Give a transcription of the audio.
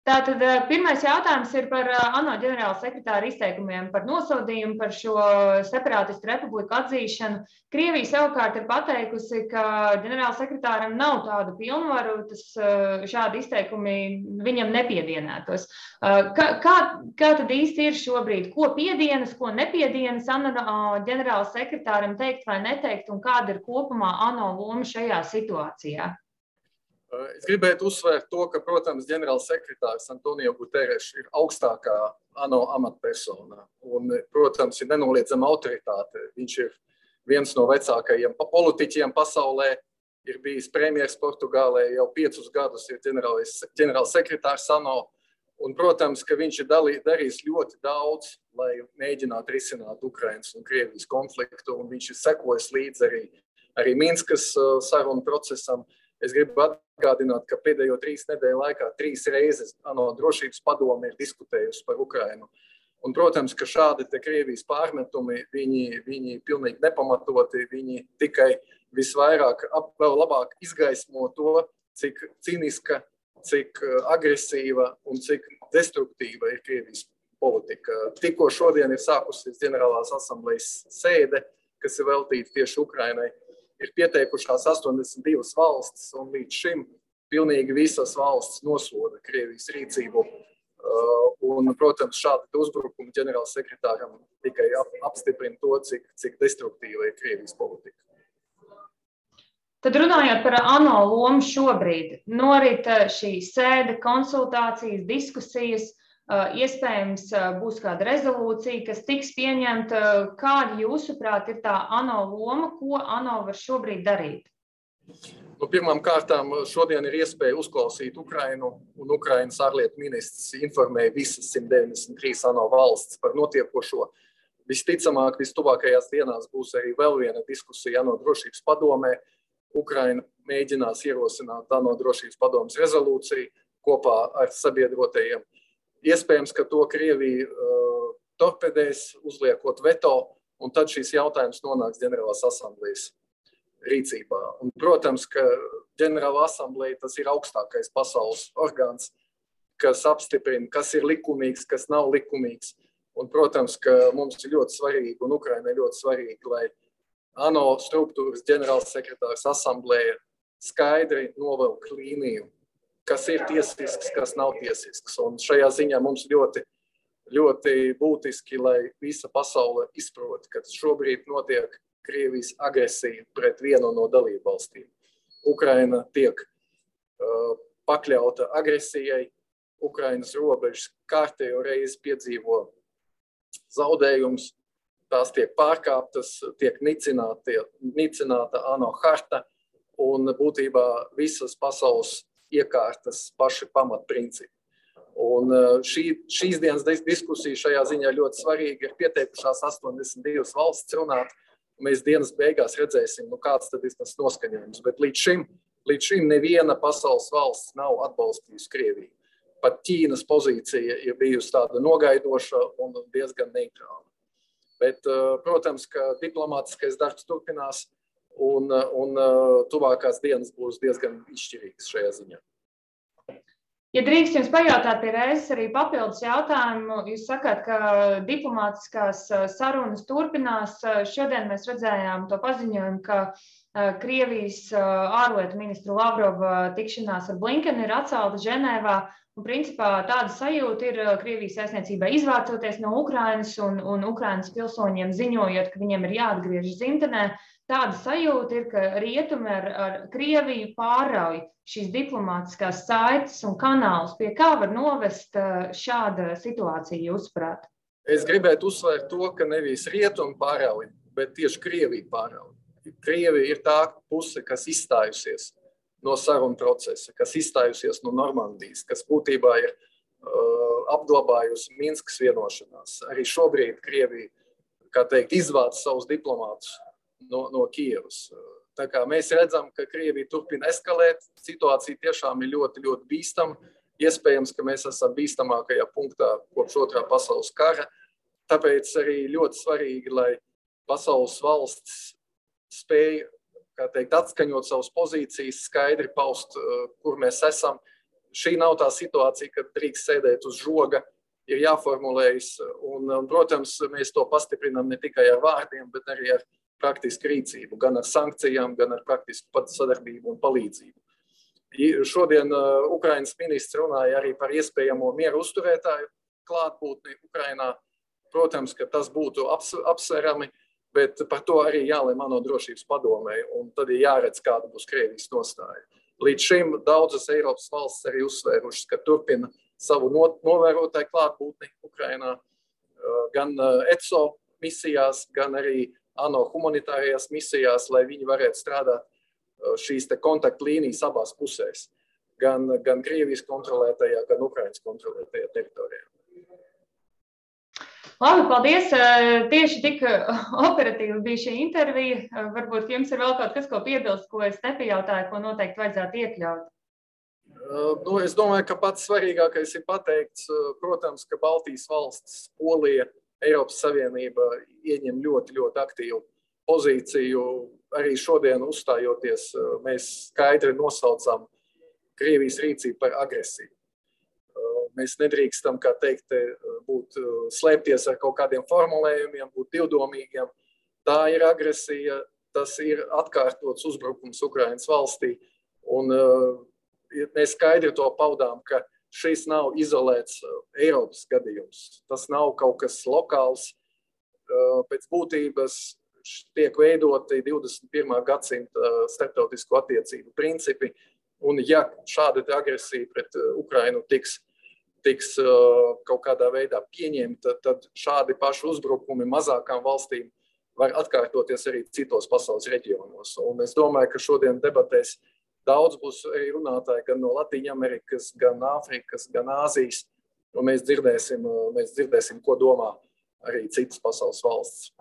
Tātad pirmais jautājums ir par ANO ģenerāla sekretāra izteikumiem par nosodījumu par šo separātistu republiku atzīšanu. Krievija savukārt ir pateikusi, ka ģenerāla sekretāram nav tādu pilnvaru, šādi izteikumi viņam nepiedienētos. Kā tad īsti ir šobrīd? Ko piedienas, ko nepiedienas ANO ģenerāla sekretāram teikt vai neteikt, un kāda ir kopumā ANO loma šajā situācijā? Es gribētu uzsvērt to, ka, protams, ģenerāls sekretārs Antonio Guterres ir augstākā ANO amatpersona. Un, protams, ir nenoliedzama autoritāte. Viņš ir viens no vecākajiem politiķiem pasaulē, ir bijis premjers Portugālē, jau 5 gadus ir ģenerāls sekretārs ANO. Un, protams, ka viņš ir darījis ļoti daudz, lai mēģinātu risināt Ukrainas un Krievijas konfliktu. Un viņš ir sekojis līdz arī Minskas sarunu procesam. Es gribu atgādināt, ka pēdējo 3 nedēļu laikā 3 reizes ANO drošības padome ir diskutējusi par Ukrainu. Un, protams, ka šādi te Krievijas pārmetumi, viņi pilnīgi nepamatoti, viņi tikai visvairāk vēl labāk izgaismo to, cik cīniska, cik agresīva un cik destruktīva ir Krievijas politika. Tikko šodien ir sākusies ģenerālās asamblejas sēde, kas ir veltīta tieši Ukrainai. Ir pieteikušās 82 valstis, un līdz šim pilnīgi visas valstis nosoda Krievijas rīcību. Un, protams, šādi uzbrukumi ģenerāls sekretāram tikai apstiprina to, cik destruktīva ir Krievijas politika. Tad runājot par ANO lomu šobrīd, norit šī sēde, konsultācijas, diskusijas, iespējams būs kāda rezolūcija, kas tiks pieņemta. Kāda jūsuprāt ir tā ANO loma, ko ANO var šobrīd darīt? Pirmām kārtām šodien ir iespēja uzklausīt Ukrainu, un Ukrainas ārlietu ministrs informēja visas 193 ANO valsts par notiekošo. Visticamāk, vistuvākajās dienās būs arī vēl viena diskusija ANO drošības padomē. Ukraina mēģinās ierosināt ANO drošības padomes rezolūciju kopā ar sabiedrotajiem. Iespējams, ka to Krievija torpedēs, uzliekot veto, un tad šis jautājums nonāks ģenerālās asamblejas rīcībā. Un, protams, ka ģenerāla asambleja tas ir augstākais pasaules orgāns, kas apstiprina, kas ir likumīgs, kas nav likumīgs. Un, protams, ka mums ir ļoti svarīgi, un Ukrainai ļoti svarīgi, lai ANO struktūras ģenerāls sekretārs asambleja skaidri novelk līniju, kas ir tiesisks, kas nav tiesisks. Un šajā ziņā mums ļoti, ļoti būtiski, lai visa pasaule izprot, ka šobrīd notiek Krievijas agresija pret vienu no dalību valstīm. Ukraina tiek pakļauta agresijai, Ukrainas robežas kārtējo reizi piedzīvo zaudējums, tās tiek pārkāptas, tiek nicināta ANO harta un būtībā visas pasaules iekārtas paši pamatprincipi. Un šīs dienas diskusija šajā ziņā ļoti svarīga. Ir pieteikušās 82 valsts runāt. Mēs dienas beigās redzēsim, kāds tad ir tas noskaņojums. Bet līdz šim neviena pasaules valsts nav atbalstījusi Krieviju. Pat Ķīnas pozīcija ir bijusi tāda nogaidoša un diezgan neitrāla. Bet, protams, ka diplomātiskais darbs turpinās, un tuvākās dienas būs diezgan izšķirīgas šajā ziņā. Ja drīkst jums pajautāt pie reizes arī papildus jautājumu, jūs sakāt, ka diplomātiskās sarunas turpinās. Šodien mēs redzējām to paziņojumu, ka Krievijas ārlietu ministru Lavrova tikšanās ar Blinkenu ir atcelta Ženēvā. Un, principā, tāda sajūta ir Krievijas vēstniecībai izvācoties no Ukrainas un Ukrainas pilsoņiem ziņojot, ka viņiem ir jāatgriežas dzimtenē. Tāda sajūta ir, ka rietumi ar Krieviju pārauj šīs diplomātiskās saites un kanālus. Pie kā var novest šāda situācija, jūsuprāt? Es gribētu uzsvērt to, ka nevis rietumi pārauj, bet tieši Krievija pārauj. Krievija ir tā puse, kas izstājusies no sarunu procesa, kas izstājusies no Normandijas, kas būtībā ir apglabājusi Minskas vienošanās. Arī šobrīd Krievija, kā teikt, izvāc savus diplomātus no Kievas. Tā kā mēs redzam, ka Krievija turpina eskalēt, situācija tiešām ir ļoti, ļoti bīstama. Iespējams, ka mēs esam bīstamākajā punktā kopš otrā pasaules kara. Tāpēc arī ļoti svarīgi, lai pasaules valsts spēja, kā teikt, atskaņot savas pozīcijas, skaidri paust, kur mēs esam. šī nav tā situācija, kad drīkst sēdēt uz žoga, ir jāformulējas, un, protams, mēs to pastiprinām ne tikai ar vārdiem, bet arī ar praktisku rīcību, gan ar sankcijām, gan ar praktisku sadarbību un palīdzību. Šodien Ukrainas ministrs runāja arī par iespējamo mieru uzturētāju klātbūtni Ukrainā. Protams, ka tas būtu apsverami, bet par to arī jālem ANO drošības padomē, un tad ir jāredz, kāda būs Krievijas nostāja. Līdz šim daudzas Eiropas valstis arī uzsvērušas, ka turpina savu novērotāju klātbūtni Ukrainā, gan ECO misijās, gan arī ANO humanitārajās misijās, lai viņi varētu strādāt šīs te kontaktlīnijas abās pusēs, gan Krievijas kontrolētajā, gan Ukrainas kontrolētajā teritorijā. Labi, paldies. Tieši tik operatīvi bija šī intervija. Varbūt jums ir vēl kaut kas, ko piebilst, ko es nepajautāju, ko noteikti vajadzētu iekļaut. Es domāju, ka pats svarīgākais ir pateikts, protams, ka Baltijas valstis, Polija, Eiropas Savienība ieņem ļoti, ļoti aktīvu pozīciju. Arī šodien uzstājoties, mēs skaidri nosaucam Krievijas rīcību par agresiju. Mēs nedrīkstam, kā teikt, slēpties ar kaut kādiem formulējumiem, būt divdomīgiem. Tā ir agresija, tas ir atkārtots uzbrukums Ukrainas valstī. Un mēs skaidri to paudām, ka šis nav izolēts Eiropas gadījums. Tas nav kaut kas lokāls. Pēc būtības tiek veidoti 21. gadsimta starptautisko attiecību principi, un ja šāda agresija pret Ukrainu tiks kaut kādā veidā pieņemta, tad šādi paši uzbrukumi mazākām valstīm var atkārtoties arī citos pasaules reģionos. Un es domāju, ka šodien debatēs daudz būs arī runātāji gan no Latīņamerikas, gan Āfrikas, gan Āzijas, un mēs dzirdēsim, ko domā arī citas pasaules valsts.